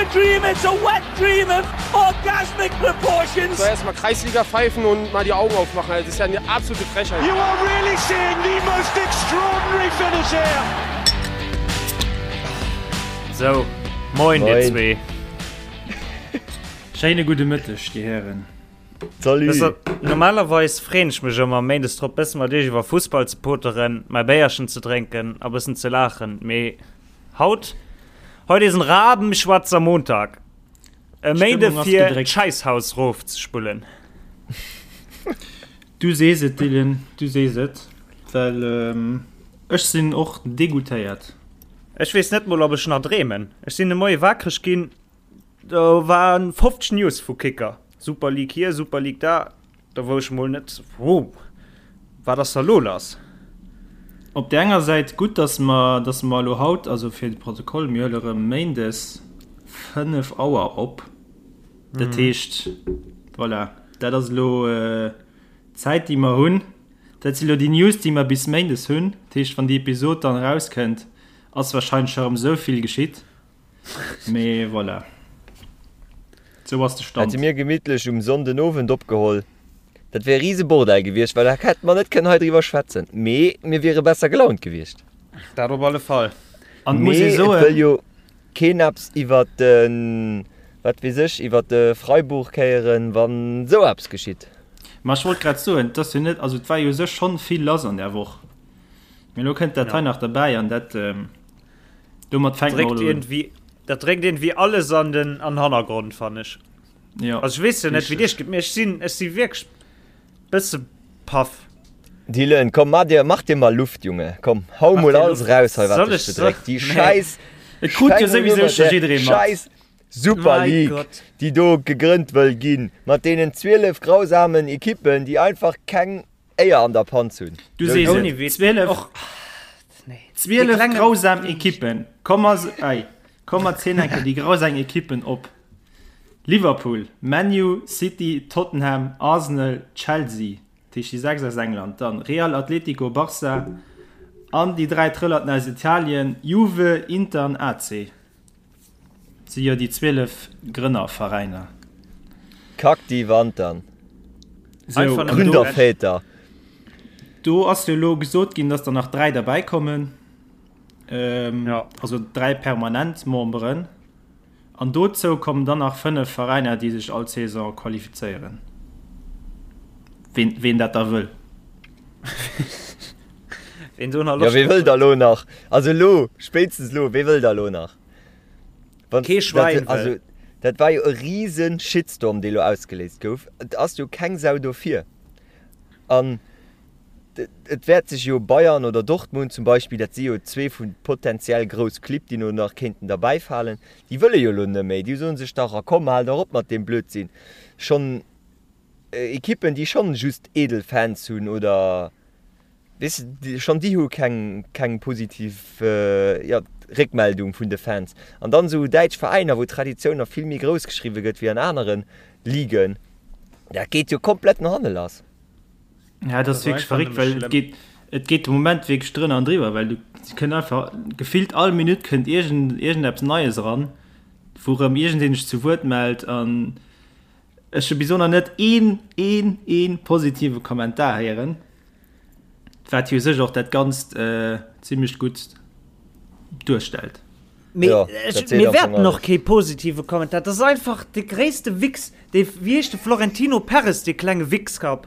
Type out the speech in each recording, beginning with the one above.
a dream, it's a wet dream of orgasmic proportions. Soll erstmal Kreisliga pfeifen und mal die Augen aufmachen. Das ist ja eine absolute Frechheit. You are really seeing the most extraordinary finish here. Sou, moin dir zwee. Schéine gudde Mëtteg, dir Hären. Salut. Normalerweis freen ech mech ëmmer méindes drop bëssen mat iech iwwer Fussball ze poteren, mäi Béierchen ze drénken a bëssen ze laachen, mee haut, heute is en rabenschwarzer Montag. E Méinde fir d'Schäisshaus rof ze spullen. Du sees et Dylan, du sees et, well ech sinn och degoûtéiert. Ech weess net mol ob ech nach dreemen. Ech sinn de Moie wakreg ginn, Do waren 50 News vu Kicker. Super League hier, Super League da. Da wou ech mol net, wow, wat ass da lo lass? Op där enger Säit gutt, dass mer, dass mer elo haut, also fir de Protokoll, mir huele rëm méindes 5 Auer op. Dat heescht, voilà, dat ass elo d'Zäit, déi mer hunn. Dat si elo déi News, déi mer bis méindes hunn. Dat heescht, wann déi Episod dann erauskënnt, ass warscheinlech scho rëm esou vill geschitt. Mee voilà. Sou ass de Stand. Hätte mir gemittlech um Sonnden Owend opgeholl, dat wär e riese Bordell gewiescht, well da hätte mer net kënnen hei driwwer schwätzen. Mee mir wiere besser gelaunt gewiescht. Dat op alle Fall. An et muss Mee ee et soen. wëll jo keen eppes iwwer de, wat weess ech, iwwer de Freiburg héieren, wann esou eppes geschitt. Ma ech wollt grad soen, et ass jo net, also et war jo u sech schonn vill lass an där Woch, mee elo kënnt dat hei nach derbäi an dat, Domat fänkt mer un. Dat dréckt iergendwéi alles an den an Hannergrond, fannen ech. Ja. Also ech weess jo net, wéi et iech geet, mee ech sinn, ech si wierklech bësse paff. Dylan, komm, mach dir, mach dir mal Luft, Junge. Komm, hau Mach mol dir alles Luft. raus hei, wat Soll dech ech, bedréckt. Déi nee. Schäiss, Et krut jo souwisou scho jidderee mat. Schäiss Super Mein League, Gott. déi do gegrënnt wëll ginn, mat deenen 12 grausamen Ekippen, déi einfach keng Éier an der Panz hunn. Du sees et, 12, 12 grausam Ekippen. Komm mer, ei, komm mer zielen eng Kéier déi grausam Ekippen op. Liverpool, ManU, City, Tottenham, Arsenal, Chelsea, dat heescht déi 6 aus England, dann Real, Atletico, Barca an déi 3 Trëllerten aus Italien, Juve, Inter an AC. Si jo déi 12 Grënnerveräiner. Kack déi Wand dann. Sou, an do, Gründerväter. do ass jo elo gesot ginn, dass der nach 3 derbäi kommen. Ähm, Ja. Also 3 permanent Memberen. An dozou kommen dann nach 5 Veräiner, déi sech all Saison qualifizéieren. Ween, ween dat da wëll. Ween do nach Ja, Loscht wee drop wëll da huet. lo nach? Also elo, spéitstens elo, wee wëll da lo nach? Wann, Kee Schwäin dat, also, wëll. dat war jo e riesen Shitstorm, dee lo ausgeléist gouf. Et ass jo keng Sau dofir. An et wäert sech jo Bayern oder Dortmund zum Beispill, dat si jo zwee vu potenziell grouss Clibb, déi no nach kéinten derbäifalen, déi wëlle jo elo net méi. Déi soen sech dach, a komm, hal dach op mat deem Blödsinn. Schonn Ekippen, déi schonn just edel Fans hunn oder Weess de, schonn déi hu keng, keng positiv, jo, Réckmeldung vun de Fans. An dann esou däitsch Veräiner, wou d'Traditioun nach vill méi grouss geschriwwe gëtt wéi an anere Ligen, dat geet jo komplett no hanne lass. Ja, dat ass wierklech verréckt, well et geet, et geet de Moment wierklech drënner an driwwer, well du kënnt einfach gefillt all Minutt kënnt iergend, iergendeppes Neies eran, wou erëm iergendeen sech zu Wuert mellt an ech hu bis elo nach net een, een, een positive Kommentar héieren. Wat jo u sech och dat Ganzt zimlech gutt duerstellt. Mee Ja, ech, dat seet mir am Fong wäerten och alles. kee positive Kommentar. Dat ass einfach de gréisste Wichs, dee, wéi heescht de, Florentino Perez, dee klenge Wichskapp.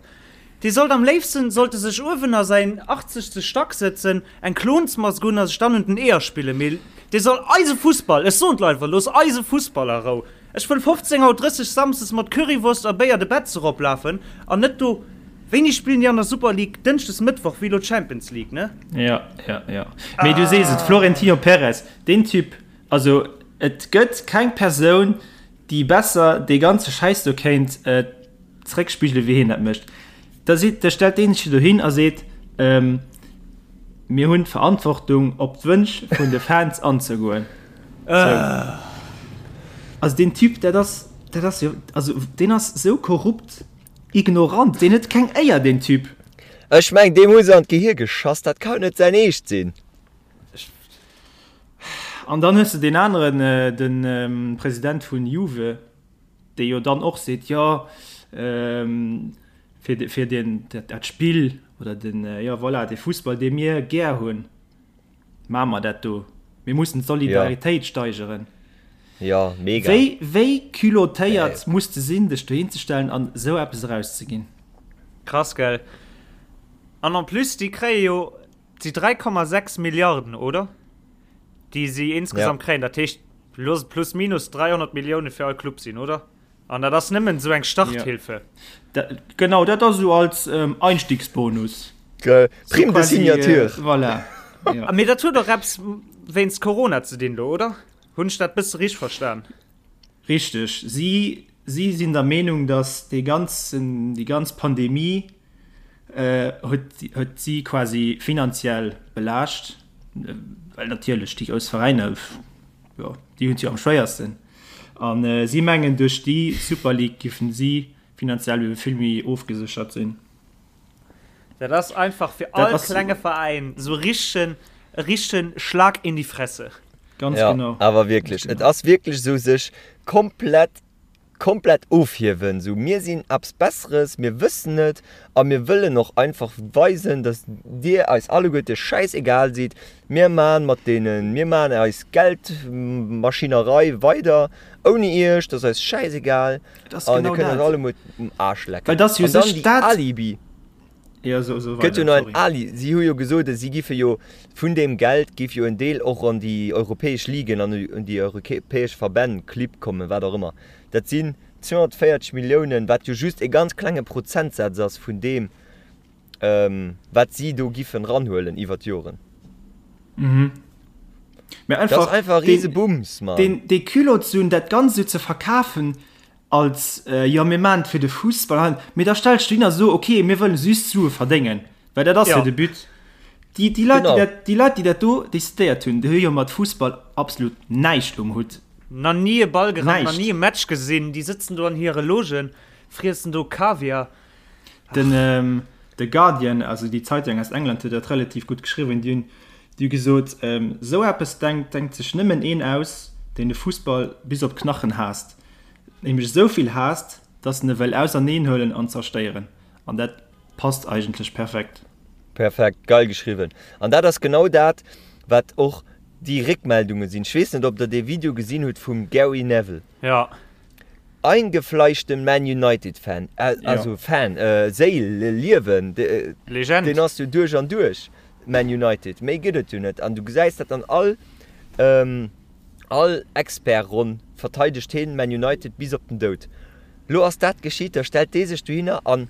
Dee sollt am léifsten, sollt e sech uewen a säin achtzegste Stack sëtzen, eng Klonsmask un a sech dann un den Eeër spillen. Mee dee soll eise Fussball, ech soen d'Leit einfach, looss eise Fussball a Rou. Ech wëll 15 Auer 30 Samsdes mat Currywurst a Béier de Betz eroplafen an net do. Wéini spillen déi an der Super League? Dënschdes, Mëttwoch, wéi elo d'Champions League, ne? Ja, ja, ja. Mee du sees et, Florentino Perez, deen Typ, also et gëtt keng Persoun, déi besser dee ganze Schäiss do kéint zeréckspigele wéi hien dat mécht. Da seet, da stellt deen sech dohin a seet, Mir hunn d'Verantwortung, op d'Wënsch vun de Fans anzegoen. Sou. Also deen Typ, dat ass, dat ass jo, also deen ass sou korrupt, ignorant, deen huet keng Éier, deen Typ. Ech meng, deem hu se an d'Gehir geschass, dat kann jo net säin Eescht sinn. An dann hues de deen aneren, de President vun Juve, dee jo dann och seet, jo, fir, fir deen, dat Spill oder den, jo voilà, dee Fussball, dee mir gär hunn, maache mer dat do. Mir mussen d'Solidaritéit steigeren. Jo, mega. Wéi, wéi culottéiert muss de sinn, dech dohinzestellen an esou eppes erauszeginn? Krass, gell? An en plus, déi kréie jo déi 3,6 Milliarden, oder? Déi si insgesamt kréien. Dat heescht, looss et plus minus 300 Millioune fir all Club sinn, oder? An dat ass nëmmen esou eng Starthilfe. Ja. Genau, dat ass esou als Einstiegsbonus. Prime de signature. Voilà. Ja. Mee dat huet och eppes wéinst Corona ze dinn do, oder? Hunn ech dat bësse richteg verstan? Richteg. Si, si sinn der Meenung, datt dee ganzen, déi ganz Pandemie huet, huet si quasi finanziell belaascht, well natierlech déi grouss Veräiner, jo, déi hunn et jo am schwéiersten. A si mengen, duerch déi Super League giffen si finanziell ebe vill méi ofgeséchert sinn. Dat ass einfach fir all klenge Veräin esou richtegen, e richtegen Schlag in die Fresse. Ganz genau. Awer wierklech, et ass wierklech esou sech komplett komplett ofhiewen, sou mir sinn eppes Besseres, mir wëssen et a mir wëllen och einfach weisen, dass dir eis alleguerte schäisegal sidd, mir man mat deenen, mir man eis Geldmaschinerei weider ouni iech, dat ass eis schäisegal an dir kënnt eis allemuer um Aarsch lecken. Well dass jo An dann sech déi dat. Alibi. Ja, so, so Gëtt jo weider, nach en sorry. Ali, si hu jo gesot, si giffe jo vun deem Geld giff jo en Deel och an déi europäesch Ligen an un déi europäesch Verbänn, Clibb kommen, wat och ëmmer. Dat sinn 240 Milliounen, wat jo just e ganz klenge Prozentsaz ass vun deem, wat si do giffen ranhuelen iwwer d'Joren. Mhm. Mä Dat ass einfach einfach e deen, Risebums, Mann. deen, dee Culot ze hunn, dat Ganzt esou ze verkafen, Als, jo mir maachen et fir de Fussball, mee da stells du hin a so, ok, mir wëllen just Sue verdéngen, well dat ass jo de But. Déi, déi Leit, déi dat, déi Leit, déi dat do decidéiert hunn, déi hu jo mat Fussball absolut näischt um Hutt. Nach ni e Ball gerannt, nach ni e Match gesinn, déi sëtzen do an hire Logen, friessen do Kaviar. Den The Guardian, also déi Zeitung aus England, huet dat relativ gutt geschriwwen. Déi hunn, déi hu gesot, esou eppes denkt, denkt sech nëmmen een aus, deen de Fussball bis op d'Knachen haasst. Nämlech esou vill haasst, dass en e wëll auserneen huelen an zerstéieren. An dat passt eigentlech perfekt. Perfekt, geil geschriwwen. An dat ass genau dat, wat och déi Réckmeldunge sinn. Ech weess net, ob der dee Video gesinn hutt vum Gary Neville. Ja. Eingefleischten Man United Fan, also Fan, Séil, Liewen, Legend. Deen ass jo duerch an duerch Man United, méi gëtt et jo net. An du gesäis dat an all. All Expertronn verteidegt heen Man United bis op den Doud. Lo ass dat geschitt, da stellt dee sech dohinner an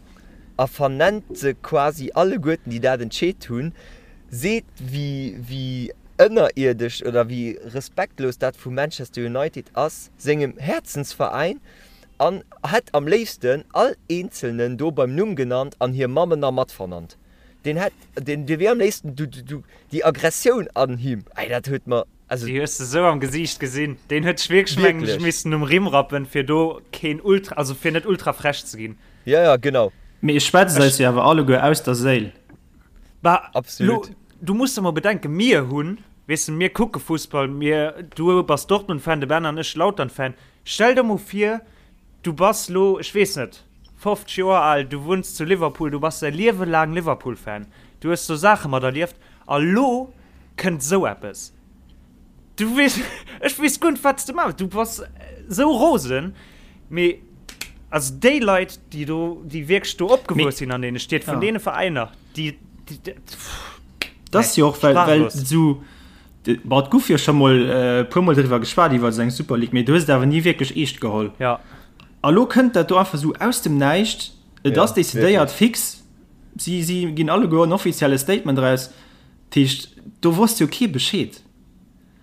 a vernennt se quasi alleguerten déi dat entscheet hunn, seet wéi wéi ënnerierdesch oder wéi respektlos dat vu Manchester United ass, sengem Häerzensveräin, an hätt am léifsten all eenzelnen do beim Numm genannt an hir Mammen nach mat vernannt. Deen hätt, deen wier am léifsten, du, du, déi Aggressioun an him, ey dat huet mer. Also, Déi hues de sou am Gesiicht gesinn. Deen huet sech wierklech, mengen ech, missen um Rimm rappen, fir do keen ultra, also fir net ultra frech ze ginn. Ja, ja, genau. Mee e schwätzt eis jo awer alleguer aus der Séil. Bah, Absolut. Lo, du muss der mol bedenken, mir hunn, weess de, mir kucke Fussball, mir, du bass Dortmund-Fan, de Ben an ech Lautern-Fan. Stell der mol vir, du bass lo, ech weess net, 50 Joer al, du wunns zu Liverpool, du bass däi Liewe laang Liverpool-Fan, du hues do Saache materlieft a lo kënnt esou eppes. Du weess, ech weess guer net, wat s de maachen. Du bass esou rosen. Mee also déi Leit, déi do, déi wierklech do opgewuess sinn an deene Stied, vun deene Veräiner, déi, déi, Dat ass jo och, well, well esou, bon, et gouf jo scho mol e puermol driwwer geschwat, iwwer esou eng Super League, mee du hues et awer ni wierklech eescht geholl. Ja. A lo kënnt dat do einfach esou aus dem Näischt, et ass decidéiert, fix, si, si ginn alleguer en offizielle Statement eraus. Dat heescht, do wosst jo kee Bescheed.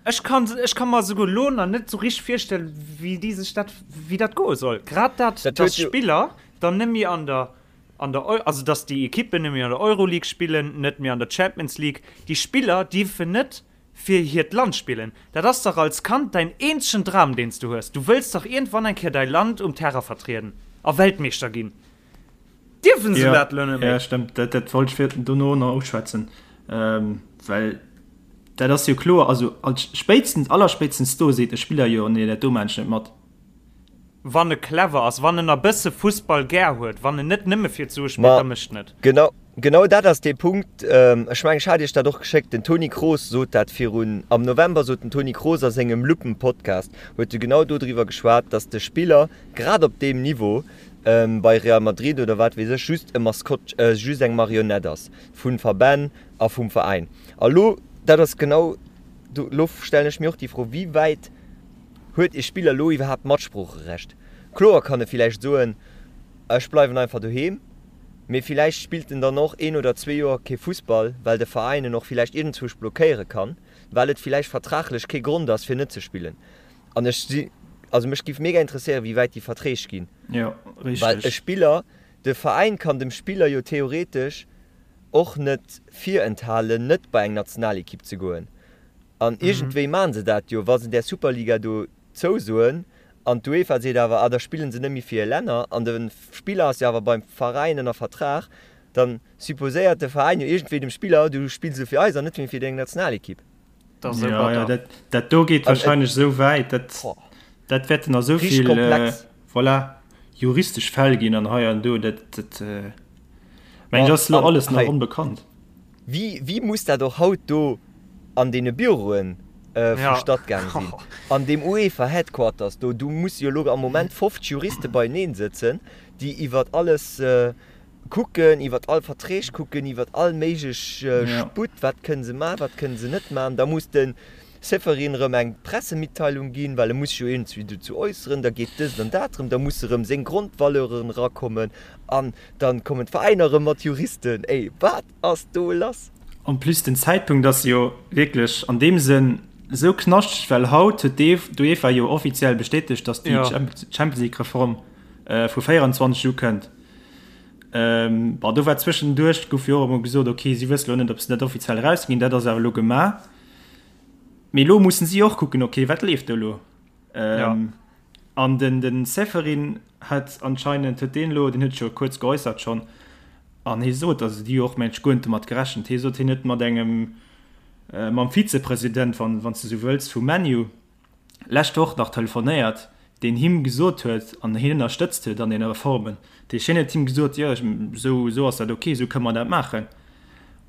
Ech kann, ech ka mer esouguer elo nach net esou richteg virstellen, wéi déi sech dat, wéi dat goe soll. Grad dat, Dat dass huet jo. Spiller dann net méi an der, an der Eu, also dass déi Ekippen net méi an der Euroleague spillen, net méi an der Champions League. Déi Spiller dierfen net fir hiert Land spillen. Dat ass dach als Kand däin eenzegen Dram, deen s du hues. Du wëlls dach iergendwann eng Kéier däi Land um Terrain vertrieden a Weltmeeschter ginn. Dierfen se dat elo net méi? Ja, stëmmt. Dat, dat wollt ech fir dono nach uschwätzen. Ähm, well. Dat ass jo kloer, also als spéitstens, allerspéitstens do seet e Spiller jo, nee dat do maan ech net mat. Wann e clever ass, wann en a bësse Fussball gär huet, wann en net nëmme fir d'Sue spillt, da mécht en et. Genau, genau dat ass dee Punkt. Ech mengen, ech hat Iech dat och geschéckt, den Toni Kroos sot dat virun, am November sot den Toni Kroos a sengem Luppen-Podcast, huet e genau dodriwwer geschwat, datt de Spiller grad op deem Niveau bei Real Madrid oder wat weess ech just e Maskott, just eng Marionett ass vu Verbänn a vum Veräin. A lo, dat ass genau do, lo stellen ech mir och déi Fro, wéi wäit huet e Spiller lo iwwerhaapt Matsproocherecht? Kloer kann e villäicht soen, ech bleiwen einfach doheem, mee villäicht spillt en dann och een oder zwee Joer kee Fussball, well de Veräin en och villäicht iergendzwousch blockéiere kann, well et villäicht vertraglech kee Grond ass fir net ze spillen. An ech si, also mech giff mega interesséieren, wéi wäit déi Verträg ginn. Jo, richteg. Well e Spiller, de Veräin kann dem Spiller jo theoretesch och net virenthalen, net bei eng Nationalekipp ze goen. An iergendwéi maachen se dat jo, wa se där Superliga do zousoen an d'UEFA seet awer, ah da spillen se net méi fir hir Länner an de Spiller ass jo awer beim Veräin ënner Vertrag, da supposéiert de Veräin jo iergendwéi dem Spiller, du spills elo fir eis an net méi fir deng Nationalekipp. Dat ass esou batter. Dat do geet warscheinlech esou wäit, dat dat wäerten nach esou vill voilà, juristesch Fäll ginn an hei an do. Dat dat mengen ech ass elo alles nach onbekannt. Wéi wéi muss dat och haut do an deene Büroen vu Statt gaang sinn, an deem UEFA Headquarters do, do musse jo elo am Moment 50 Juriste beieneen sëtzen, déi iwwert alles kucken, iwwert all Verträg kucken, iwwert all méiglech Sputt, wat kënne se maachen, wat kënne se net maachen. Da muss de Ceferin erëm eng Pressemitteilung ginn, well e muss sech jo iergendwéi dozou äusseren. Da geet dëst an dat erëm, da musse erëm seng Grondvaleuren erakommen an da kommen d'Veräiner erëm mat Juristen. Ey, wat ass do lass? En plus den Zäitpunkt ass jo wierklech an deem Sënn esou knaschteg, well haut huet d'UEFA jo offiziell bestätegt, datt déi Champions League Reform vu 24 ukënnt. Bon, do war zwëschenduerch, gouf jo och emol gesot, ok, si wësse lo net, ob se dat offiziell erausginn. Dat ass awer elo gemaach. Mee elo mussen si och kucken, ok, wat leeft do elo? An den, den Ceferin hat anscheinend, huet deen elo, deen huet sech jo kuerz geäussert schonn, an hie sot, also déi hu och mengt ech guer net domat gerechent, hie sot, hien huet mat engem, mam Vizepresident, wann, wann s de esou wëlls, vu ManU, lescht Woch nach telefonéiert, deen him gesot huet an hien ënnerstëtzt huet an deene Reformen. Dat heescht, hien huet him gesot, jo, esou, esou ass dat ok, esou kënne mer dat maachen,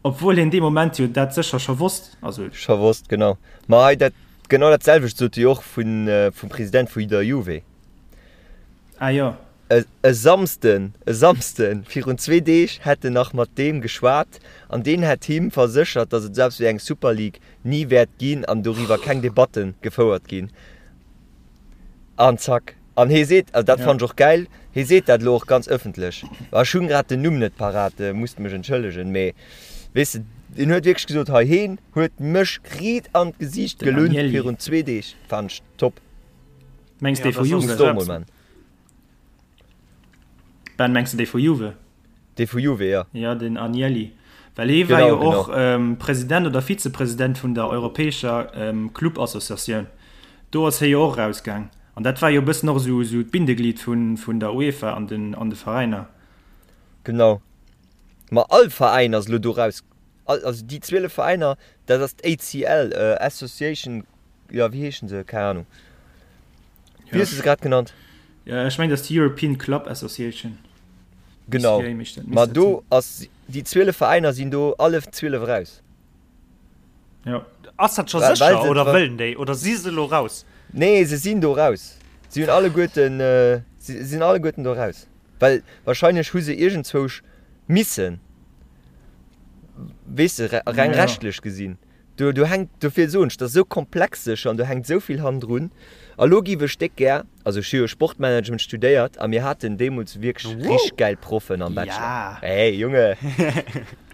obwuel hien dee Moment jo dat sécher scho wosst. Also. Scho wosst, genau. Ma hei dat, genau dat selwecht sot e jo och vun, vum President vu der Juve. Ah jo. E Samsden, e Samsden virun zwee Deeg hätt en nach mat deem geschwat an deen hätt him verséchert, datt et esou eppes wéi eng Super League ni wäert ginn an doriwwer keng Debatte gefouert ginn. An zack. An hee seet, also dat fannen ech och gäil, hee seet dat elo och ganz ëffentlech, ech hunn grad den Numm net parat, musst mech entschëllegen, mee weess de, deen huet wierklech gesot, hei heen huet mech riit an d'Gesiicht gelunn virun zwee Deeg. Fannen ech top. Mengs dee vu Juve? Ben, mengs de dee vu Juve? Dee vu Juve, jo. Jo, den Agnelli. Well hee war jo och President oder Vizepresident vun der europäescher Club-Associatioun. Do ass hie jo och erausgaang. An dat war jo e bëssen och esou d'Bindeglied vun der UEFA an de Veräiner. Genau. Ma all Veräin ass elo do raus. Also déi 12 Veräiner, dat ass d'ACL, Association Jo, wéi heeschen se? Keng Ahnung. Wéi hues du se grad genannt? Ja, ech mengen, dat ass d'European Club Association. Genau. Ma do ass, déi 12 Veräiner sinn do alle 12 eraus. Ja. Ass dat scho sécher oder wëllen déi oder si se elo raus? Nee, se sinn do raus. Si hunn alleguerten, si sinn alleguerten do raus. Well wahrscheinlech hu se iergendzwousch missen, weess de, reng rechtlech gesinn. Do, do hänkt, dofir soen ech, dat ass esou komplex sécher an do hänkt esou vill hannendrun. A lo giff ech déck gär, also ech hu jo Sportmanagement studéiert a mir haten deemools wierklech richteg gäil Proffen am Bachelor. Hey Junge!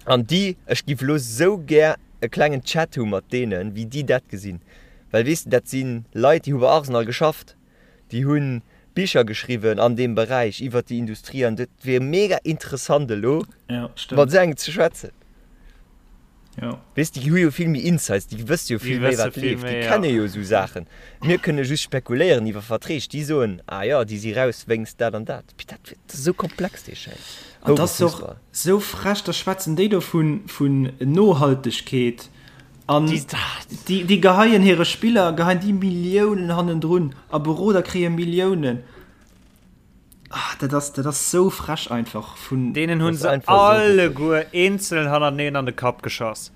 An déi, ech giff lo esou gär e klengen Chat hu mat deenen, wéi déi dat gesinn. Well weess de, dat si Leit, déi hu bei Arsenal geschafft, déi hu Bicher geschriwwen an deem Beräich iwwert déi Industrie an dat wier mega interessant elo mat esou engem ze schwätzen. Ja. Weess, déi hu jo vill méi Insights, déi wësse jo vill méi, wat leeft, déi kenne jo esou Saachen. Mir kënne just spekuléieren iwwer Verträg, déi soen, ah jo, déi si raus wéinst dat an dat. Mee dat ass esou komplex, dee Schäiss. An dat ass och esou frech, da schwätzen déi do vun, vun Nohaltegkeet. An déi, déi geheien hire Spiller, geheien déi Milliounen hannendrun a Beroder kréie Milliounen. Ah, dat ass, dat ass sou frech einfach vun. Deenen hunn se alleguer eenzel hannerteneen an de Kapp geschoss.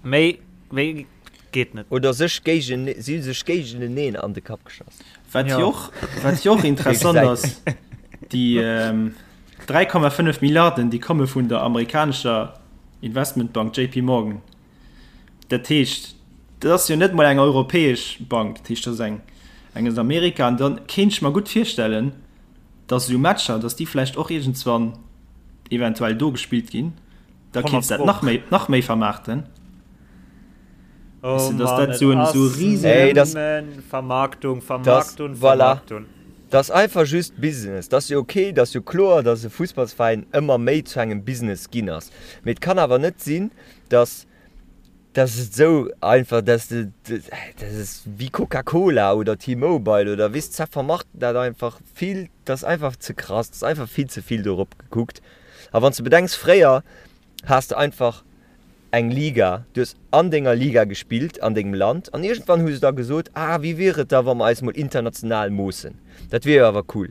Méi, méi geet net. Oder sech géigen, si hu sech géigeneneen an de Kapp geschoss. Wat jo och, wat jo och interessant ass, déi 3,5 Milliarden, déi komme vun der amerikanescher Investmentbank JP Morgan. Dat heescht, dat ass jo net mol eng europäesch Bank, dat heescht, dat ass eng, eng aus Amerika. An dann kéint ech mer gutt virstellen, datt esou Matcher, datt déi vläicht och iergendswann eventuell do gespillt ginn. Da kéints dat nach méi, nach méi vermaarten. Oh Weißt du, dass dat so en so riesen Vermarktung, Vermarktung, voilà. Vermarktung. Dat ass einfach just Business. Dat ass jo ok, dat ass jo kloer, datt e Fussballsveräin ëmmer méi zu engem Business ginn ass. Mee et kann awer net sinn, datt datt et esou einfach, datt de, dat ass wéi Coca-Cola oder T-Mobile oder weess, ze vermarkten dat einfach vill, dat ass einfach ze krass, dat ass einfach vill ze vill dorop gekuckt. A wann s de bedenks, fréier has de einfach eng Liga, du hues an denger Liga gespillt an dengem Land an iergendwann hu se da gesot, ah wéi wier et da wa mer eis mol international moossen, dat wier jo awer cool.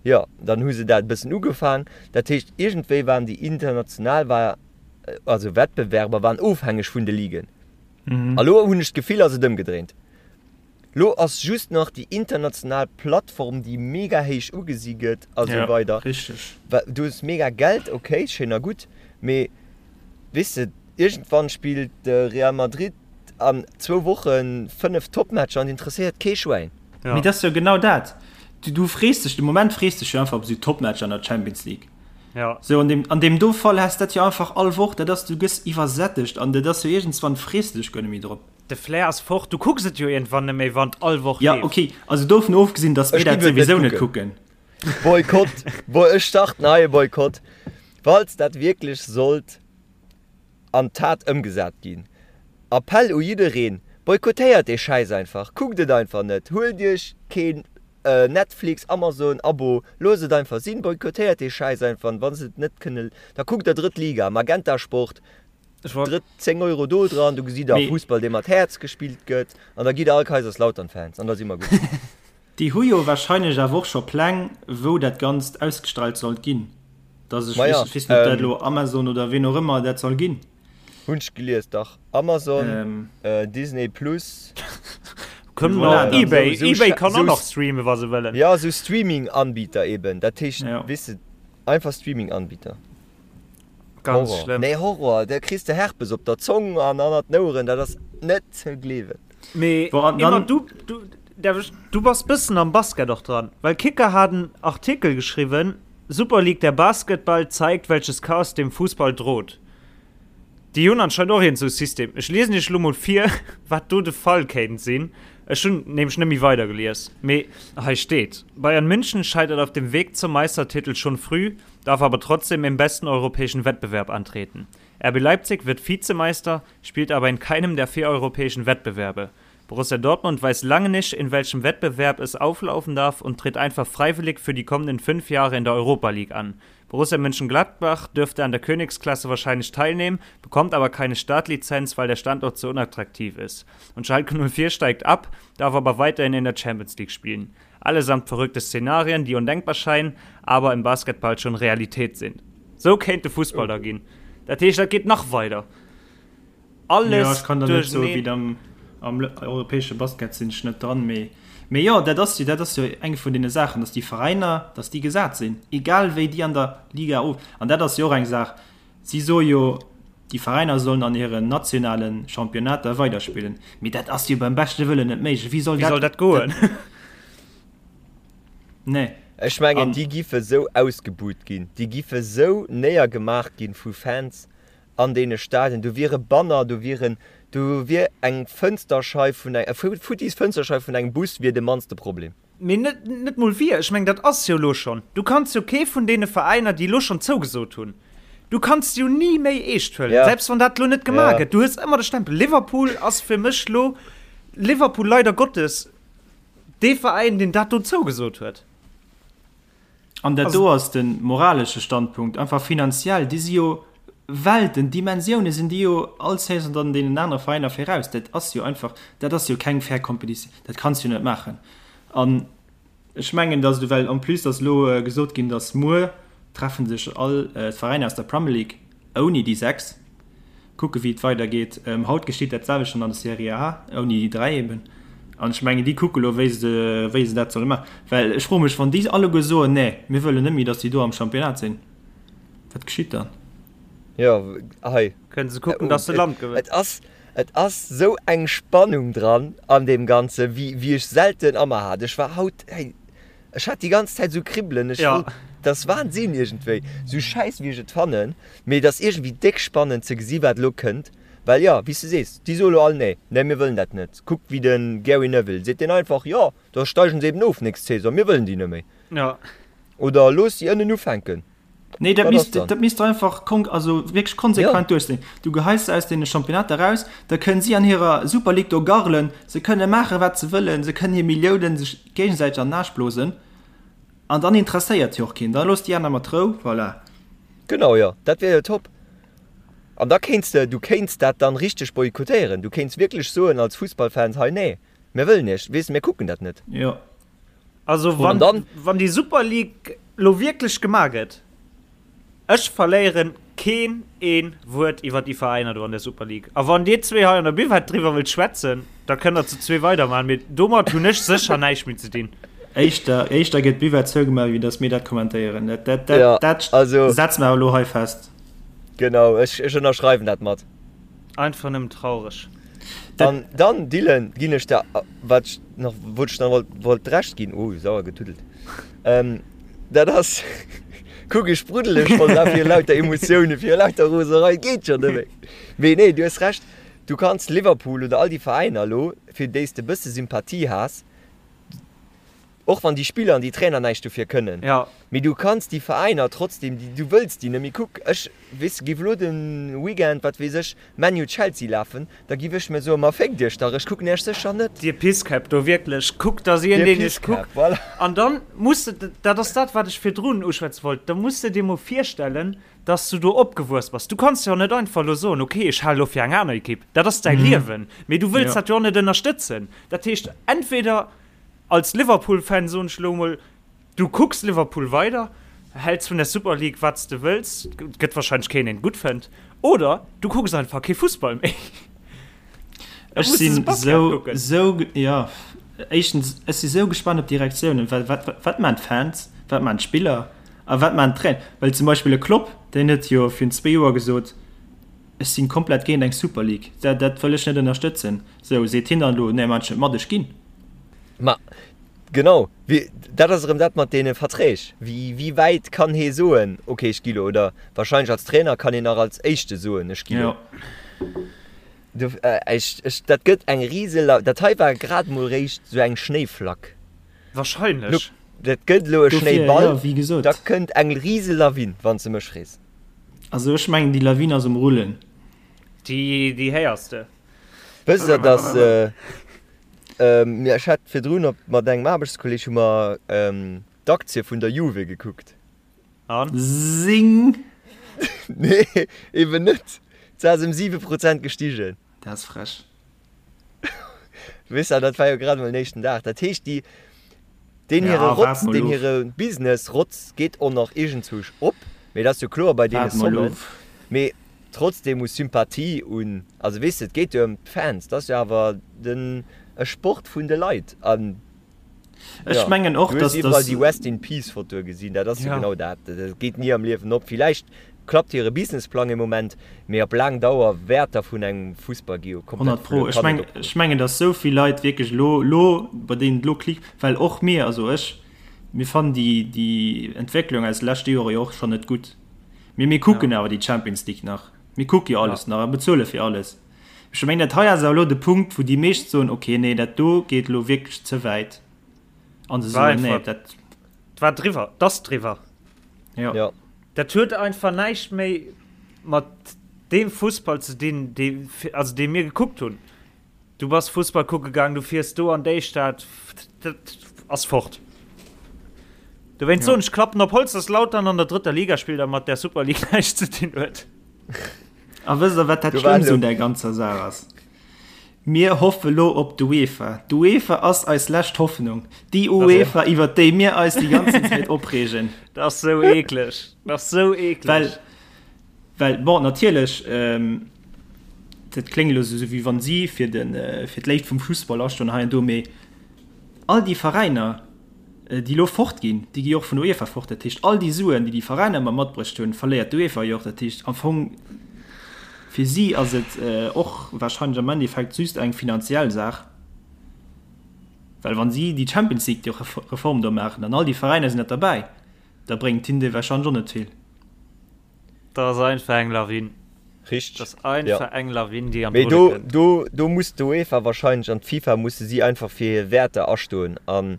Jo, dann hu se dat e bëssen ugefaang, dat heescht iergendwéi waren déi international war, also Wettbewerber waren ofhängeg vun de Ligen. A lo hunn ech d'Gefill ass et ëmgedréint. Lo ass just nach déi international Plattform, déi mega héich ugesi gëtt a sou weider. Richteg. Du hues mega Geld, ok, schéin a gutt, mee weess de, iergendwann spillt de Real Madrid an zwou Woche 5 Topmatcher an et interesséiert kee Schwäin. Mee dat ass jo genau dat. Du frees dech, de Moment frees dech jo einfach op esou Topmatcher an der Champions League. Ja. Sou an deem, an deem do Fall häss dat jo einfach all Woch, dat ass, du gëss iwwersättegt an dat ass jo iergendswann frees de dech guer net méi drop. De Flair ass fort, du kucks et jo iergendwann net méi, wann et all Woch Ja, leeft. okay, also dovun ofgesinn, dass mir Ech dat giff et net souwisou net kucken. kucken. Boykott, Bo ech starten hei e Boykott, falls dat wierklech sollt an d'Tat ëmgesat ginn. Appell u jiddereen, Boykottéiert dee Schäiss einfach, kuckt et einfach net, huelt iech keen Netflix, Amazon Abo, loosst et einfach sinn, boykottéiert dee Schäiss einfach an wa se et net kënne, da kuckt der Drëtt Liga, Magenta Sport, Drëtt 10 Euro do dran, do gesitt der Fussball dee mat Häerz gespillt gëtt an da gitt der all Kaiserslautern-Fans an da si mer gutt. Déi hu jo wahrscheinlech awer och scho Pläng wou dat Ganzt ausgestrahlt sollt ginn, dass ech Maja, weess net ob dat elo Amazon oder ween och ëmmer dat soll ginn. Hunn ech gelies, dach Amazon, Disney Plus. Kënnen och eBay, eBay kann och nach streamen wa se wëllen. Jo, esou Streaming-Anbieter eben, dat heescht, weess de, einfach Streaming-Anbieter. Ganz Horror. schlëmm. Nee, Horror, da kriss de Herpes op der Zong an annert den Oueren, dat ass net ze gleewen. Mee Bon, an Emma, dann. du, du, därf ech, du bass bëssen am Basket och dran, well Kicker hat en Artikel geschriwwen, Super League, der Basketball zeigt, welches Chaos dem Fußball droht. Déi hunn anscheinend och iergend sou e System. Ech liesen iech elo mol vir, wat do de Fall kéint sinn. Ech hunn nämlech net méi weidergelies, mee hei steet, Bayern München scheitert auf dem Weg zum Meistertitel schon früh, darf aber trotzdem im besten europäischen Wettbewerb antreten. RB Leipzig wird Vizemeister, spielt aber in keinem der vier europäischen Wettbewerbe. Borussia Dortmund weiß lange nicht, in welchem Wettbewerb es auflaufen darf und tritt einfach freiwillig für die kommenden fünf Jahre in der Europa League an. Borussia Mönchengladbach dürfte an der Königsklasse wahrscheinlich teilnehmen, bekommt aber keine Startlizenz, weil der Standort zu unattraktiv ist. Und Schalke 04 steigt ab, darf aber weiterhin in der Champions League spielen. Allesamt verrückte Szenarien, die undenkbar scheinen, aber im Basketball schon Realität sind. Sou kéint de Fussball da ginn. Dat heescht, dat geet nach weider. Alles Jo, ech kann der net soen, duercherneen. wéi et am, am europäesche Basket sinn ech net dran, mee, mee jo, dat ass jo, dat ass jo eng vun deene Saachen, datt déi Veräiner, datt déi gesat sinn, egal wéi déi an der Liga of, an dat ass jo och eng Saach, si soe jo, déi Veräiner sollen an hiren nationale Championnater weiderspillen, mee dat ass jo beim beschte Wëllen net méiglech. Wéi soll Wéi soll dat, dat goen? nee. Ech mengen, An. déi giffe sou ausgebuht ginn, déi giffe sou néiergemaach ginn vu Fans an deene Stadien, do wiere Banner, do wieren, do wier eng Fënsterscheif vun eng, e futtis Fënsterscheif vun engem Bus wier de mannste Problem. Mee net, net mol wier, ech mengen, dat ass jo elo schonn. Du kanns jo kee vun deene Veräiner, déi elo schonn zougesot hunn, du kanns se jo ni méi eescht huelen, Ja. selbst wann dat elo net gemaach Ja. gëtt. Du hues ëmmer de Stempel. Liverpool ass fir mech elo, Liverpool leider Gottes, dee Veräin, deen dat do zougesot huet. An dat do ass de moralesche Standpunkt, einfach finanziell, déi si jo. Welten, Dimensioune sinn déi jo all Saison dann deenen anere Veräiner viraus. Dat ass jo einfach, dat ass jo keng fair Competition, dat kanns du jo net maachen. An ech mengen, datt et, well en plus ass elo gesot ginn, datt muer treffe sech all d'Veräiner aus der Premier League ouni déi 6, kucke wéi et weidergeet. Haut geschitt dat selwecht dann an der Serie A, ouni déi 3 eben. An ech mengen, déi kucke elo wéi se, wéi se dat solle maachen. Well ech froe mech, wann déi alleguer soen, nee, mir wëllen net méi, datt déi do am Championnat sinn. Wat geschitt dann? Jo, hei. Kënnen se kucken, dass se Land gewënnen. Et ass, et ass sou eng Spannung dran an deem Ganzen, wéi, wéi ech selten a mer hat. Ech war haut, hey, ech hat déi ganz Zäit sou Kribbelen. Ech wollt, dat ass Wahnsinn iergendwéi, sou schäiss wéi ech et fannen, mee et ass iergendwéi déck spannend ze gesi wat elo kënnt. Well jo, wéi s de sees, déi soe lo all, nee, nee, mir wëllen dat net. Kuck wéi de Gary Neville seet deen einfach, jo, da steigen se eben of nächst Saison, mir wëllen déi net méi. Jo. Oder looss si ënnen ufänken. Nee, dat misst, dat misst einfach kon also wierklech konsequent ja. duerchsinn. Du geheis se aus deene Championnater raus, da kënnen si an hirer Super League do garlen, se kënne maache wat se wëllen, se kënnen hir Milliounen sech géigesäiteg an den Aarsch blosen an dann interesséiert jo och keen. Da looss déi aner mat Rou, voilà. Genau, jo, dat wier jo top. An da kéints de, du kéints dat dann richteg boykottéieren. Du kéints wierklech soen als Fussballfans, hei nee, mir wëllen iech, weess, mir kucken dat net. Jo. Also wann, dann, wann déi Super League lo wierklech gemaach gëtt, ech verléieren keen een Wuert iwwer déi Veräiner do an der Super League. A wann dir zwee hei an der Buvette driwwer wëllt schwätzen, da kënnt der zu zwee weidermachen, mee domat hunn ech sécher näischt méi ze dinn. Éischter, éischter gëtt d'Buvette zougemaach, wéi datt mir dat kommentéieren. Dat, dat, dat, ja, dat also, setze mer elo hei fest. Genau, ech, ech ënnerschreiwen dat mat. Einfach nëmmen traureg. An dann, Dylan, ginn ech der, wat ech nach, wollt ech nach wollt, wollt d'Recht ginn, oh, sauer getuddelt, ähm, dat ass, kuck, ech spruddele schonn da fir lauter Emotiounen, fir lauter Roserei, geet jo net méi. Mee nee, du hues Recht, du kanns Liverpool oder all déi Veräiner elo, fir déi s de e bësse Sympathie has, Och wann déi Spiller an déi Trainer näischt dofir kënnen. Ja. Mee du kanns déi Veräiner trotzdem, déi, du wëlls déi net méi. Kuck, ech, weess de, géif elo de Weekend, wat weess ech, Man U-Chelsea lafen, da giff ech mir soen, ma féckt iech dach, ech kucken iech sécher net. Dir Pisskäpp do, wierklech, kuckt, dass een, deen iech kuckt. Voilà. An dann muss de, dat ass dat, wat ech virdrun uschwätze wollt, da muss de dir mol virstellen, dass du do opgewuess bass. Du kanns jo net einfach elo soen, okay, ech hale lo fir eng aner Ekipp. Dat ass däi Liewen. Mee du wëlls dat jo och net ënnerstëtzen. Dat heescht, entweder Als Liverpool-Fan soen ech elo emol, du kucks Liverpool weider, häls vun der Super League wat s de wëlls, et gëtt wahrscheinlech keen deen et gutt fënnt, oder du kucks einfach kee Fussball méi. Ech sinn sou, sou, jo, éischtens, ech si sou gespannt op déi Reaktiounen, well wat, wat maan d'Fans, wat maan d'Spiller a wat maan d'Trainer? Well zum Beispill e Klopp, deen huet jo virun zwee Joer gesot, ech sinn komplett géint eng Super League, dat, dat wëll ech net ënnerstëtzen. Sou, seet hien dann elo, nee, maan ech net mat, ech ginn. Ma genau, wéi, dat ass erëm dat mat deene Verträg. Wéi, wéi wäit kann hee soen, okay, ech gi lo? Oder wahrscheinlech als Trainer kann een nach als Éischte soen, ech gi lo. Jo. Do, ech, ech, dat gëtt eng rise, dat hei war grad mol réischt sou eng Schnéiflack. Wahrscheinlech. Dat gëtt elo e Dofir, Schnéiball, jo, wéi gesot. da kënnt eng rise Lawin, wann s de mech frees. Also ech mengen, déi Lawin ass um Rullen. Déi, déi héiers de. Wësst der, dass, ech hat virdrun op, mat engem Aarbechtskolleg hu mer d'Aktie vun der Juve gekuckt. An? Sing! Nee, eben net. Se ass ëm 7 Prozent gestigen. Dat ass frech. Weess der, dat war jo grad emol den éischten Dag. Dat heescht, déi, deen hire Ja, waart Rotz, mol deen of. hire Business Rotz geet och nach iergendzwousch op. Mee dat ass jo kloer bei deene Waart mol Sommen. of. Mee trotzdem u Sympathie un, also weess de, et geet jo ëm d'Fans, dat ass jo awer den, e Sport vun de Leit. An Ech jo, mengen och, du hues dass, iwwerall dass déi Rest in Peace Fotoe gesinn, dat ass jo Ja. genau dat. Dat geet ni am Liewen op. Villäicht klappt hire Businessplang ee Moment, mee op laang Dauer Wäerter vun engem Fussball gi jo komplett 100 pro. verluer, Ech kann meng, net opgoen. ech mengen, dass esou vill Leit wierklech elo, elo, bei deenen et elo klickt, well och mir, also ech, mir fannen déi, déi Entwécklung aus de leschte Jore jo och schonn net gutt. Mee mir kucken awer déi Champions League nach. Mir kucke jo alles nach a bezuele fir alles. Ech mengen, dat hei ass awer elo de Punkt, wou déi meescht soen, okay, nee, dat do geet elo wierklech ze wäit. An se soen, nee, dat. Et war driwwer, et ass driwwer. Jo. Jo. Dat huet einfach näischt méi mat deem Fussball ze dinn, dee, also dee mir gekuckt hunn. Du bass Fussball kucke gaang, du fiers do an déi Stad, dat ass fort. Dowéinst soen ech, klappen op Holz, dass Lautern an der drëtter Liga spillt a mat där Super League näischt ze dinn huet. A wësst der, wat dat Schlëmmst un där ganzer Saach ass? Mir hoffe lo op d'UEFA. D'UEFA ass eis lescht Hoffnung. Déi UEFA, iwwer déi mir eis déi ganzen Zäit opreegen. Dat ass sou eekleg. Dat ass sou eekleg. Well, well, bon, natierlech, dat kléngt elo sou, wéi wann si fir de, fir d'Léift vum Fussball astoen hei an do, mee all déi Veräiner, déi elo fort ginn, déi gi jo och vun der UEFA fort. Dat heescht, all déi Suen, déi déi Veräiner ëmmer matbruecht hunn, verléiert d'UEFA jo och. Dat heescht, am Fong fir si ass et och wahrscheinlech am Endeffekt just eng finanziell Saach, well wa si déi Champions League, déi Reform do maachen an all déi Veräiner sinn net derbäi, da bréngt hinnen déi wahrscheinlech och net vill. Dat ass einfach eng Lawin. Richteg. Dat ass einfach eng Lawin, déi an d'Rulle kënnt. Mee do, do muss d'UEFA wahrscheinlech an d'FIFA musse si einfach fir hir Wäerter astoen. An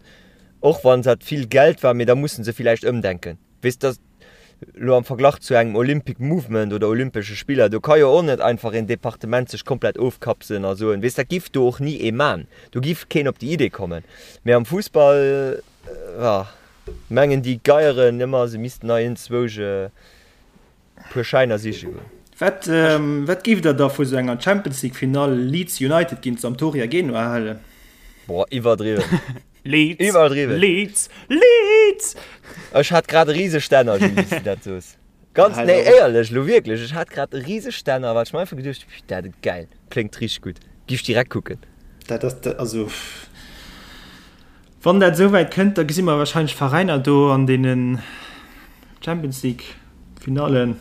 och wann dat vill Geld war, mee da musse se villäicht ëmdenken. Weess de, elo am Verglach zu engem Olympic Movement oder Olympesche Spiller, do ka jo och net einfach een Departement sech komplett ofkapselen a soen, weess, dat giff do och ni ee man. Do giff keen op déi Idee kommen. Mee am Fussball, jo. Mengen déi Geieren ëmmer se missten nei enzwousch e puer Schäiner siche goen. Wat wat géift der da vu sou enger Champions League Finall Leeds United géint Sampdoria Genua halen? Boah, iwwerdriwwen. Leeds, Iwwerdriwwen. Leeds, Leeds! Ech hat grad e rise Stänner, Jules, wéi s du dat soos. Ganz, nee, éierlech, elo wierklech, ech hat grad e rise Stänner, well ech mer einfach geduecht hu, dat geil, kléngt richteg gutt, giff ech direkt kucken. Dat ass, also. Wann dat esou wäit kënnt, da gesi mer wahrscheinlech Veräiner do an deenen Champions League Finallen,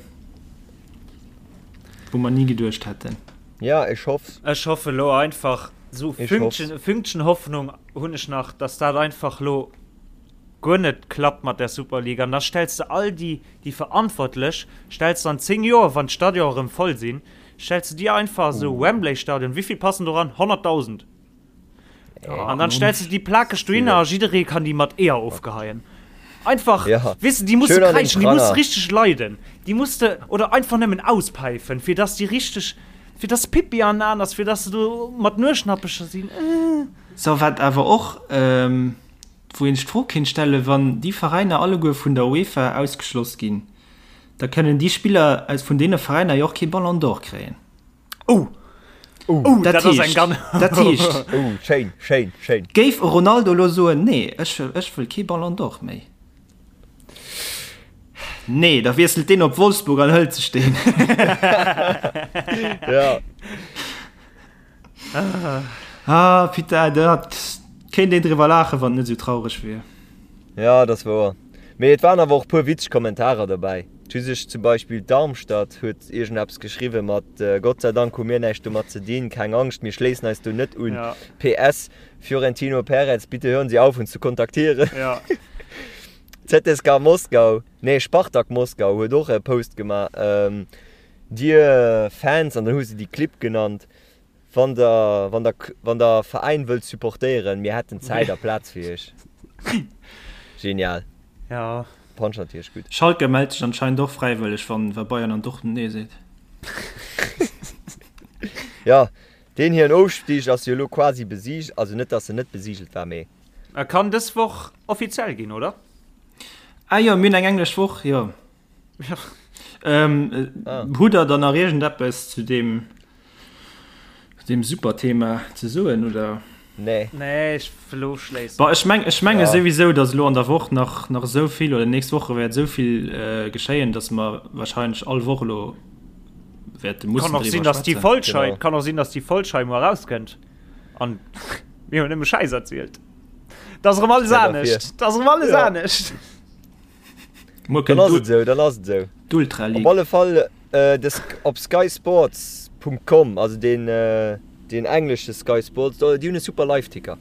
wou mer ni geduecht hätten. Ja, ech hoff's. Ech hoffe lo einfach, esou e Fünkchen, e Fünkchen Hoffnung hunn ech nach, dass dat einfach lo guer net klappt mat där Superliga. An da stells de all déi, déi Verantwortlech, stells de an 10 Joer, wann d'Stadionen erëm voll sinn, stells de déi einfach esou, Wembley-Stadion, wéivill passen do ran? 100.000. An dann stellst du déi plakeg dohinner a jidderee kann déi mat Eeër ofgeheien. Einfach, ja. weess de, déi musse kräischen, déi musse richteg leiden. Déi muss de, oder einfach nëmmen auspäifen, fir dass déi richteg, fir dass Pippi an den Aen ass, fir dass se do mat Nueschnappecher sinn. Äh. So, wat awer och, wou een sech d'Fro kéint stellen, Wann déi Veräiner alleguer vun der UEFA ausgeschloss ginn, da kënnen déi Spiller aus vun deene Veräiner jo och kee Ballon d'Or kréien. Oh! Oh, dat, dat ass eng ganz. Dat heescht. Oh, schéin, schéin, schéin. Géif e Ronaldo elo soen, nee, ech, ech wëll kee Ballon d'Or méi. Nee, da wiesselt deen op Wolfsburg an hëlt sech deen. Ja. Ah, putain, dat kéint een driwwer laachen, wann et net esou traureg wier. Ja, dat ass wouer. Mee et waren awer och e puer witzeg Kommentarer dobäi. Et hu sech zum Beispill Darmstadt huet iergendeppes geschriwwe mat Gott sei Dank hu mir näischt domat ze dinn, keng Angscht, mir schléissen eis do net un. Ja. PS, Fiorentino Perez, bitte hören Sie auf uns zu kontaktieren. Ja. ZSKA Moskau, nee Spartak Moskau huet och e Post gemaach, Dir Fans, an dann hu se déi Clibb genannt, Wann der, wann der, wann der Veräin wëllt supportéieren, mir hätten Zäit a Plaz fir iech. Genial. Ja. Punch natierlech gutt. Schalke mellt sech anscheinend och fräiwëlleg, wann wa Bayern an Dortmund nee seet. Ja, deen hiren Ofstig ass jo elo quasi besiegelt, also net dass en net besiegelt war, mee. E kann dës Woch offiziell ginn, oder? Ah jo, mir hunn eng englesch Woch, jo. Ja. Ähm, ah. Hutt der dann nach iergendeppes zu deem, deem super Thema ze soen oder? Nee. Nee, ech wëll ofschléissen. Bah, ech meng, ech menge ja. souwisou, datt elo an der Woch nach, nach esou vill oder nächst Woche wäert esou vill äh, geschéien, datt mer wahrscheinlech all Woch elo wäerte mussen Kann och sinn, driwwer dass déi schwätzen. Folg hei, Genau. kann och sinn, dass déi Folg hei muer erauskënnt an mir hunn nëmme Schäiss erzielt. Da ass erëm alles Ja, dafir. anescht. Da ass erëm alles Ja. anescht. Muer Dann kënnt ass et esou, dann ass et esou. d'Ultra Op League. alle Fall de op skysports.com, also deen deen englesche Sky Sports, do déi hunn e super Live-Ticker.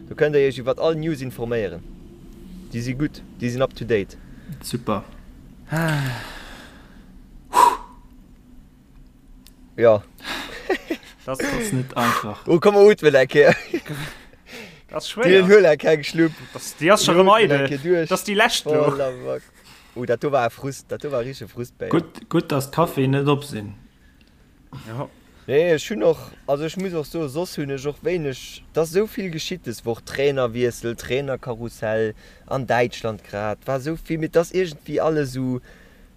Do kënnt der iech iwwert all News informéieren. Déi si gutt, déi sinn up to date. Super. Jo. Das ass net einfach. Oh komm mer ootmen eng Kéier. Das ass Dylan schwéier. huel eng keng Schlupp. Das, déi ass scho rëm eidel. Das ass déi lescht Oh lo. la vache. Oh dat do war e Frust, dat do war e richtege Frustbéier. Gutt, gutt dass d'Caféen net op sinn. Ja. Nee ech hunn och, also ech muss och soen, soss hunn ech och wéineg, et ass esou vill geschitt des Woch, Trainerwiessel, Trainerkarussell an Däitschland grad, war esou vill, mee et ass iergendwéi alles esou.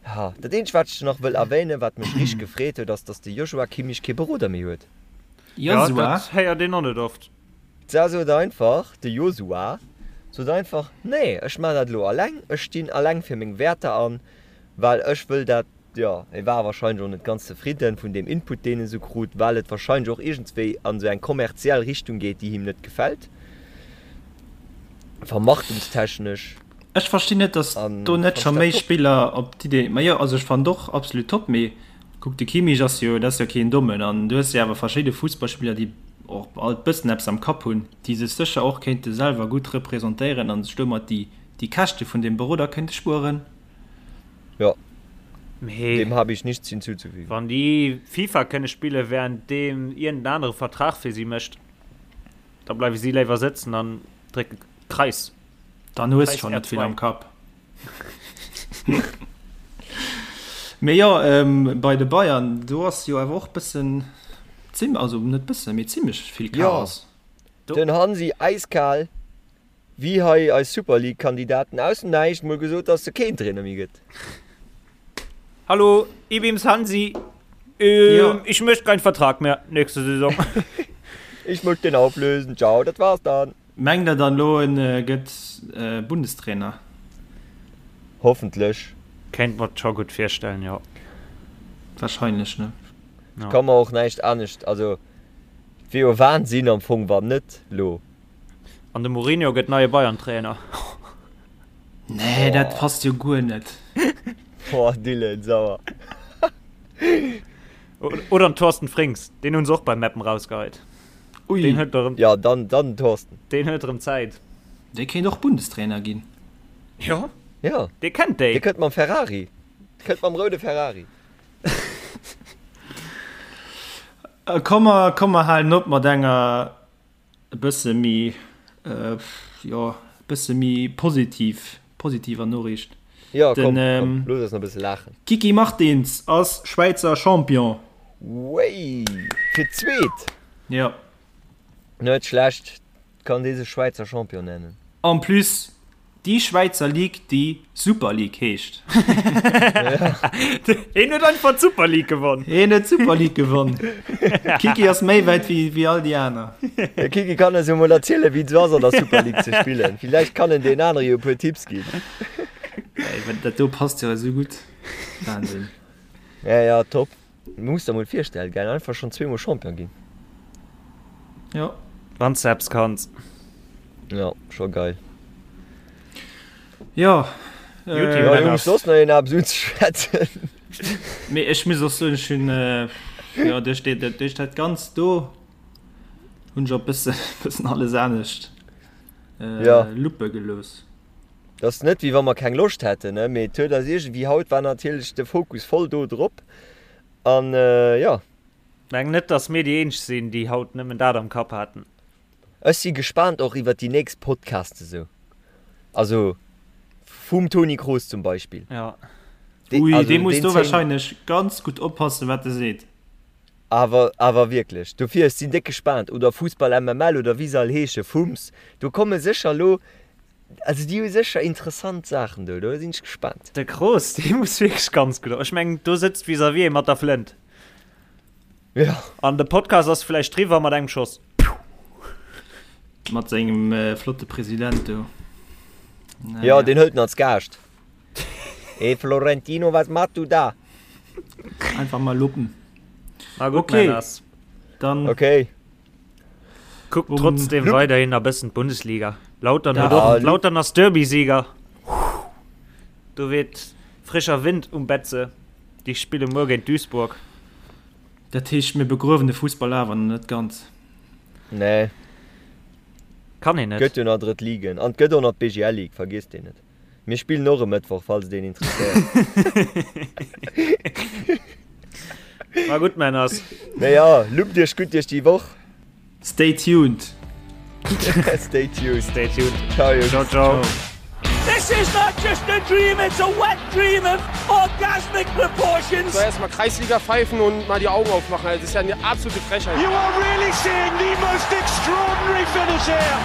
Ha, dat eenzegt wat ech nach wëll erwähnen, wat mech richteg gefreet huet, ass dass de Joshua Kimmich kee Beroder méi huet. Jo, dat héiert een och net oft. D'Sa sot einfach, de Josua sot einfach, Nee, ech maachen dat elo alleng, ech stinn alleng fir meng Wäerter an, well ech wëll dat, jo, e war wahrscheinlech och net ganz zefridden vun deem Input, deen e sou krut, well et wahrscheinlech och iergendswéi an esou eng kommerziell Richtung geet, déi him net gefält, vermarktungstechnesch. Ech verstinn net, dass do net scho méi Spiller op d'Idee, ma jo, also ech fannen och absolut top, mee kuck, de Kimmich ass jo, dat ass jo keen Dommen an du hues jo awer verschidde Fussballspiller, déi och alt bëssen eppes am Kapp hunn, déi sech sécher och kéinte selwer gutt representéieren an sech domat déi déi Käschte vun deem Beroder kéinte spueren. Jo, dem habe ich nichts hinzuzufügen. Wann déi FIFA kënne spillen, während deem iergend en anere Vertrag fir si mécht, da bleiwe si léiwer sëtzen an drécke Kreis. Dann hues de schon net vill am Kapp. Mee jo, ähm, bei de Bayern, do ass jo awer och bëssen, zim, also net bëssen, mee zimmlech vill Chaos. Jo, den Hansi äiskal, wéi hei eis Super League Kandidaten aus dem Näischt mol gesot, dass se keen Trainer méi gëtt. Hallo, ich bin's Hansi. Ähm, ja. Ich möchte keinen Vertrag mehr nächste Saison. Ich möchte den auflösen. Ciao, dat war's dann. Mengt der dann lo en gëtt Bundestrainer? Hoffentlech. Kéint mer scho gutt virstellen, jo. Wahrscheinlech, ne? Ech ka mer och näischt anescht, also et wier jo Wahnsinn am Fong wann net lo. An de Mourinho gëtt neie Bayern-Trainer. Nee, dat passt jo guer net. Boah, Dylan, sauer. Oder den Thorsten Frings, deen hunn se och bei Meppen rausgeheit. Ui. Deen huet erëm. Ja, dann, dann den Thorsten. Deen huet erëm Zäit. Dee kéint och Bundestrainer ginn. Jo. Jo. Dee kennt déi. Dee kënnt mam Ferrari. Dee kënnt mam roude Ferrari. Komm mer, komm mer halen op mat enger e bësse méi, jo, e bësse méi positiv, positiver Noriicht. Jo, komm, komm, looss eis nach e bësse laachen. Kiki Martins ass Schwäizer Champion. Wéi? Fir d'zweet? Jo. Net schlecht, kann dee sech Schwäizer Champion nennen. En plus déi Schwäizer Ligue déi Super League heescht. Hien huet einfach d'Super League gewonn. Hien huet d'Super League gewonn. Kiki ass méi wäit wéi, wéi all déi aner. De Kiki kann eis jo mol erzielen wéi et esou ass an der Super League ze spillen. Villäicht kann en deenen anere jo e puer Tipps ginn. Ey, dat do passt jo esou gutt. Wahnsinn. Ja, ja, top. Muss der mol virstellen gell, einfach schon zweemol Champion ginn. Jo. Wanns de eppes kanns. Jo, scho geil. Jo. Äh, jo, Jungs, soss nach een eppes unzeschwätzen? Mee ech muss och soen, ech hunn, jo, duerch déi, duerch dat Ganzt do hunn ech och bëssen, bëssen alles anescht äh, luppe gelooss. Et ass net wéi wa mer keng Loscht hätten, ne, mee et huet eis iergendwéi, haut war natierlech de Fokus voll do drop an jo. Meng net dass mir déi eenzeg sinn déi haut nëmmen dat am Kapp haten. Ech si gespaant och iwwert déi nächst Podcasts esou, also vum Toni Kroos zum Beispill. Jo. Ui, dee muss do wahrscheinlech ganz gutt oppassen wat e seet. Awer, awer wierklech. Dofir, ech sinn déck gespaant. Oder Fussball MML oder wéi se all heesche, Fums, do komme sécher elo Also déi hu sécher interessant Saachen do, do sinn ech gespaant. De Kroos, dee muss wierklech ganz gutt, ech mengen do sëtzt vis-à-vis ee mat der Flënt. Ja. An de Podcast ass vläicht driwwer mat engem Schoss. Mat sengem flotte President do. Ja, deen hëlt en als Gaascht. Hey Florentino, was machst du da? Einfach mal luppen. Na gutt, okay. Männers. Dann. Okay. Kuckt trotzdem weiderhin a bëssen d'Bundesliga. Lautern huet och, Lautern ass Derbysieger. Do weht frischer Wind um Betze. Déi spille muer géint Duisburg. Dat heescht, mir begruewen de Fussball awer nach net ganz. Nee. Kann een net. Gëtt jo nach drëtt Ligen an et gëtt och nach d'BGL Ligue, vergiesst déi net. Mir spillen och e Mëttwoch, falls et een interesséiert. Ma gutt, Männers. Mee jo, luppt iech gutt duerch déi Woch. Stay tuned. Stay tuned. Stay tuned. Ciao, Jungs. Ciao, ciao. This is not just a dream, it's a wet dream of orgasmic proportions. Soll erstmal Kreisliga pfeifen und mal die Augen aufmachen. Das ist ja eine absolute Frechheit. You are really seeing the most extraordinary finish here.